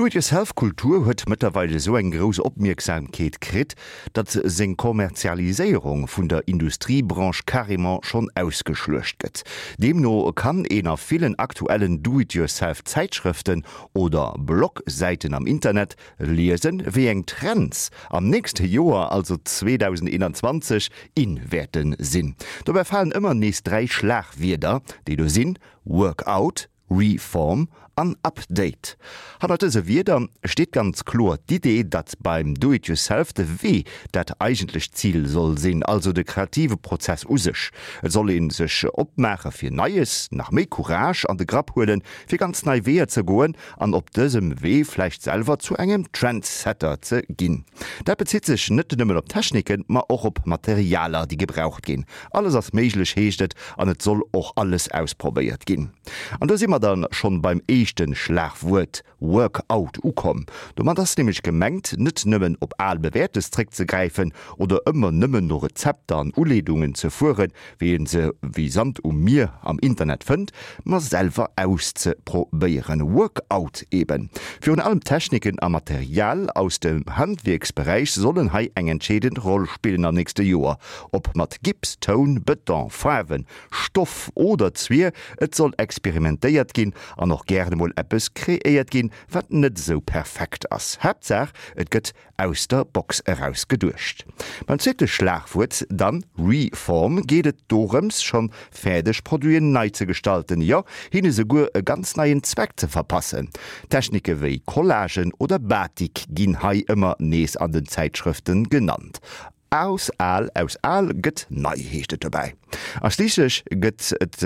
D'Do-it-yourself-Kultur huet mëttlerweil esou eng grouss Opmierksamkeet kritt, datt seng Kommerzialiséierung vun der Industriebranche carrément schonn ausgeschluecht gëtt. Deemno kann een a villen aktuellen Do-it-yourself-Zäitschrëften oder Blog-Säiten am Internet liesen, wéi eng Trends am nächste Joer, also 2021, in wäerte sinn. Dobäi falen ëmmer nees 3 Schlagwierder, déi do sinn, Workout, Reform an Update. Hannert dëse Wierder steet ganz kloer d'Idee, datt beim Do it yourself de Wee dat eigentlecht Zil soll sinn, also de kreative Prozess u sech. Et soll ee sech opmaache fir Neies, nach méi Courage an de Grapp huelen, fir ganz nei Weeër ze goen an op dësem Wee vläicht selwer zu engem Trendsetter ze ginn. Dat bezitt sech net nëmmen op Techniken, ma och op Materialer, déi gebraucht ginn. Alles ass méiglech, heescht et, an et soll och alles ausprobéiert ginn. An do si mer dann schonn beim éischten Schlagwuert Workout ukomm. Domat ass nämlech gemengt, net nëmmen op al Bewäertes zréckzegräifen oder ëmmer nëmmen no Rezepter an Uleedungen ze fueren, wéi een se wéi Sand um Mier am Internet fënnt, ma selwer auszeprobéieren. Workout eben. Virun allem Techniken a Material aus dem Handwierksberäich sollen hei eng entscheedend Roll spillen am nächste Joer. Ob mat Gips, Toun, Bëton, Faarwen, Stoff oder Zwier, et soll experimentéiert ginn an och gären emol eppes kreéiert ginn, wat net esou perfekt ass. Haaptsaach et gëtt aus der Box eraus geduecht. Beim zweete Schlagwuert dann, Reform, geet et dorëms, schonn fäerdeg Produiten nei ze gestalten, jo hinne souguer e ganz neien Zweck ze verpassen. Technike wéi Collagen oder Batik ginn hei ëmmer nees an den Zäitschrëfte genannt. Aus al, aus al gëtt nei, heescht et dobäi. A schliisslech gëtt et,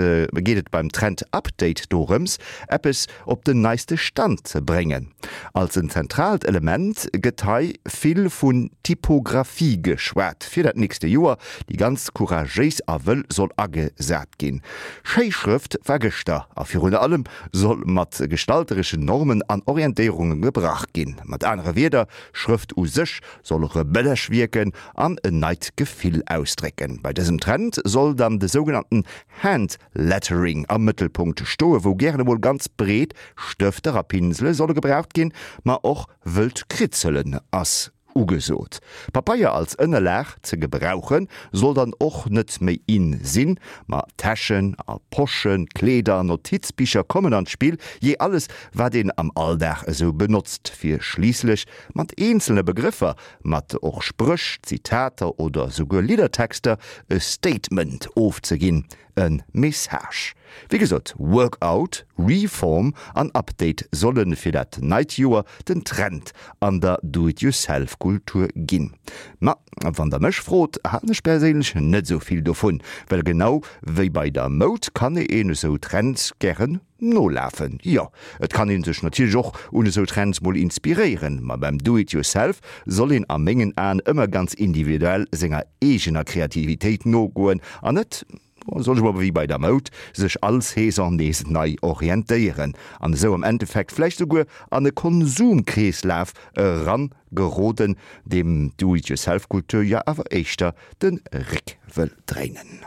geet et beim Trend Update dorëms, eppes op den neiste Stand ze bréngen. Als en zentraalt Element gëtt hei vill vun Typographie geschwat, fir dat nächste Joer, déi ganz couragéis a wëll soll agesat ginn. Schéi Schrëft war gëschter a virun allem soll mat gestaltereschen Normen an Orientéierunge gebrach ginn. Mat anere Wierder, Schrëft u sech soll rebellesch wierken an en neit Gefill ausdrécken. Bei dësem Trend soll dann de sougenannten Hand Lettering am Mëttelpunkt stoe, wou gären emol ganz breet Stëfter a Pinsele solle gebraucht ginn, ma och wëllt Kritzelen ass ugesot. Papeier als Ënnerlag ze gebrauche soll dann och net méi in sinn, ma Täschen a Poschen, Kleeder an Notizbicher kommen an d'Spill, jee alles wat een am Alldag esou benotzt, fir schliisslech mat eenzelne Begrëffer, mat och Spréch, Zitater oder souguer Liddertexter e Statement ofzeginn, e Message. Wéi gesot, Workout, Reform an Update solle fir dat neit Joer den Trend an der Do-it-yourself-Kultur ginn. Ma wann der mech frot, halen ech perséinlech net esou vill dovun, well genau wéi bei der Moud kann een esou Trends gären Nolafen, jo, et kann een sech natierlech och un esou Trends mol inspiréieren, ma beim Do it yourself soll een a mengen Aen ëmmer ganz individuell senger eegener Kreativitéit nogoen an net, soll ech mol wéi bei der Moud, sech all Saison nees nei orientéieren an esou am Endeffekt vläicht souguer an e Konsumkreeslaf eran geroden, deem d'Do it yourself Kultur jo awer éischter de Réck wëll dréinen.